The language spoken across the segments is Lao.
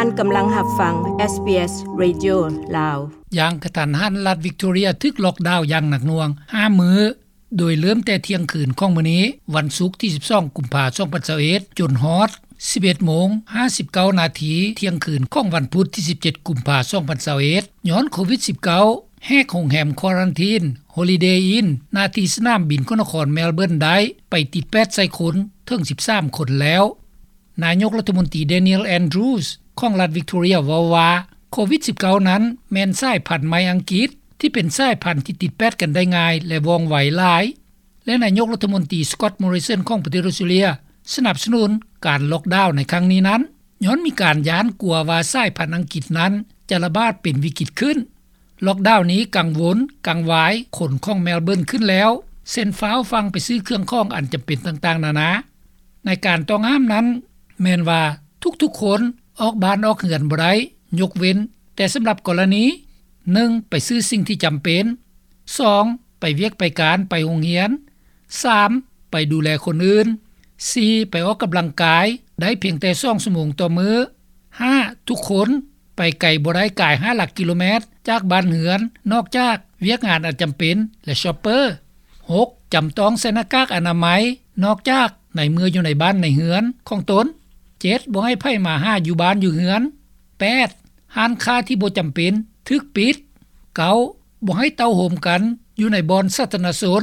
ທ່ານກຳລັງຮັບຟັງ ເອສບີເອສ ເຣດິໂອ ລາວ. ຢ່າງກະທັນຫັນ, ລັດວິກໂຕເຣຍຖືກລັອກດາວຢ່າງໜັກໜ່ວງ ຫ້າ ມື້, ໂດຍເລີ່ມແຕ່ທ່ຽງຄືນຂອງມື້ນີ້ ວັນສຸກທີສິບສອງ ກຸມພາ ສອງພັນຊາວເອັດ ຈົນຮອດ ສິບເອັດໂມງ ຫ້າສິບເກົ້ານາທີ ທ່ຽງຄືນຂອງວັນພຸດທີສິບເຈັດ ກຸມພາ ສອງພັນຊາວເອັດ ຍ້ອນໂຄວິດສິບເກົ້າ ແຫກໂຮງແຮມຄວາຣັນທີນ Holiday Inn ໜ້າທີ່ສະໜາມບິນຂອງນະຄອນເມລເບີນໄດ້ ໄປຕິດແປດໃສ່ຄົນເຖິງສິບສາມຄົນແລ້ວ. ນາຍົກລັດຖະມົນຕີ Daniel Andrews ຂອງລັດວິກໂຕເຣຍເວົ້າວ່າ ໂຄວິດສິບເກົ້ານັ້ນແມ່ນສາຍພັນໃໝ່ອັງກິດ ທີ່ເປັນສາຍພັນທີ່ຕິດແປດກັນໄດ້ງ່າຍ ແລະ ວ່ອງໄວຫຼາຍ ແລະ ນາຍົກລັດຖະມົນຕີ Scott Morrison ຂອງປະເທດອົດສະຕຣາເລຍ ສະໜັບສະໜູນການລັອກດາວໃນຄັ້ງນີ້ນັ້ນ ຍ້ອນມີການຢ້ານກົວວ່າສາຍພັນອັງກິດນັ້ນຈະລະບາດເປັນວິກິດຂຶ້ນ. ລັອກດາວນີ້ກັງວົນ, ກັງວາຍຄົນຂອງເມລເບີນຂຶ້ນແລ້ວ ເຊັ່ນ ຟ້າວຟັ່ງໄປຊື້ເຄື່ອງຂອງອັນຈຳເປັນຕ່າງໆນານາ. ໃນການຕ້ອງຫ້າມນັ້ນ ແມ່ນວ່າທຸກໆຄົນອອກບ້ານອອກເຮືອນບໍ່ໄດ້ ຍົກເວັ້ນແຕ່ສຳລັບກໍລະນີ ໜຶ່ງ ໄປຊື້ສິ່ງທີ່ຈຳເປັນ, ສອງ ໄປວຽກໄປການ, ໄປໂຮງຮຽນ, ສາມ ໄປດູແລຄົນອື່ນ, ສີ່ ໄປອອກກຳລັງກາຍໄດ້ພຽງແຕ່ສອງຊົ່ວໂມງຕໍ່ມື້, ຫ້າ ທຸກຄົນໄປໄກບໍ່ໄດ້ກາຍຫ້າຫຼັກກິໂລແມັດຈາກບ້ານເຮືອນ ນອກຈາກວຽກງານອັນຈຳເປັນ ແລະ ຊອບເປີ, ຫົກ ຈຳຕ້ອງໃສ່ໜ້າກາກອະນາໄມ ນອກຈາກໃນເມື່ອຢູ່ໃນບ້ານໃນເຮືອນຂອງຕົນ, ເຈັດ ບໍ່ໃຫ້ໃຜມາຫາຢູ່ບ້ານຢູ່ເຮືອນ, ແປດ ຮ້ານຄ້າທີ່ບໍ່ຈຳເປັນຖືກປິດ, ເກົ້າ ບໍ່ໃຫ້ເຕົ້າໂຮມກັນຢູ່ໃນບ່ອນສາທາລະນະຊົນ,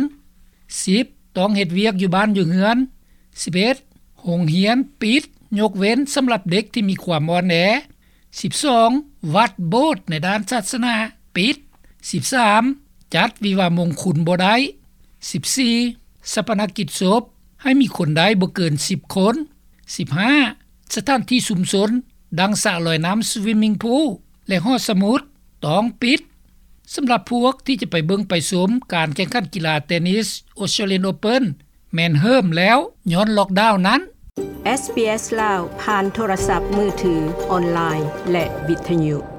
ສິບ ຕ້ອງເຮັດວຽກຢູ່ບ້ານຢູ່ເຮືອນ, ສິບເອັດ ໂຮງຮຽນປິດ ຍົກເວັ້ນສຳລັບເດັກທີ່ມີຄວາມອ່ອນແອ, ສິບສອງ ວັດ, ໂບດໃນດ້ານສາສະໜາປິດ, ສິບສາມ ຈັດວິວາມງຄຸນບໍ່ໄດ້, ສິບສີ່ ຊາປະນະກິດສົບໃຫ້ມີຄົນໄດ້ບໍ່ເກີນສິບຄົນ, ສິບຫ້າ ສະຖານທີ່ຊຸມຊົນ ດັ່ງສະລອຍນ້ຳ Swimming Pool ແລະ ຫໍສະໝຸດ ຕ້ອງປິດ. ສຳລັບພວກທີ່ຈະໄປເບິ່ງໄປຊົມການແຂ່ງຂັນກິລາເຕນິສ Australian Open ແມ່ນເຫີມແລ້ວ ຍ້ອນລັອກດາວນັ້ນ. ເອສບີເອສ ລາວ ຜ່ານໂທລະສັບມືຖື, ອອນລາຍ ແລະ ວິທະຍຸ.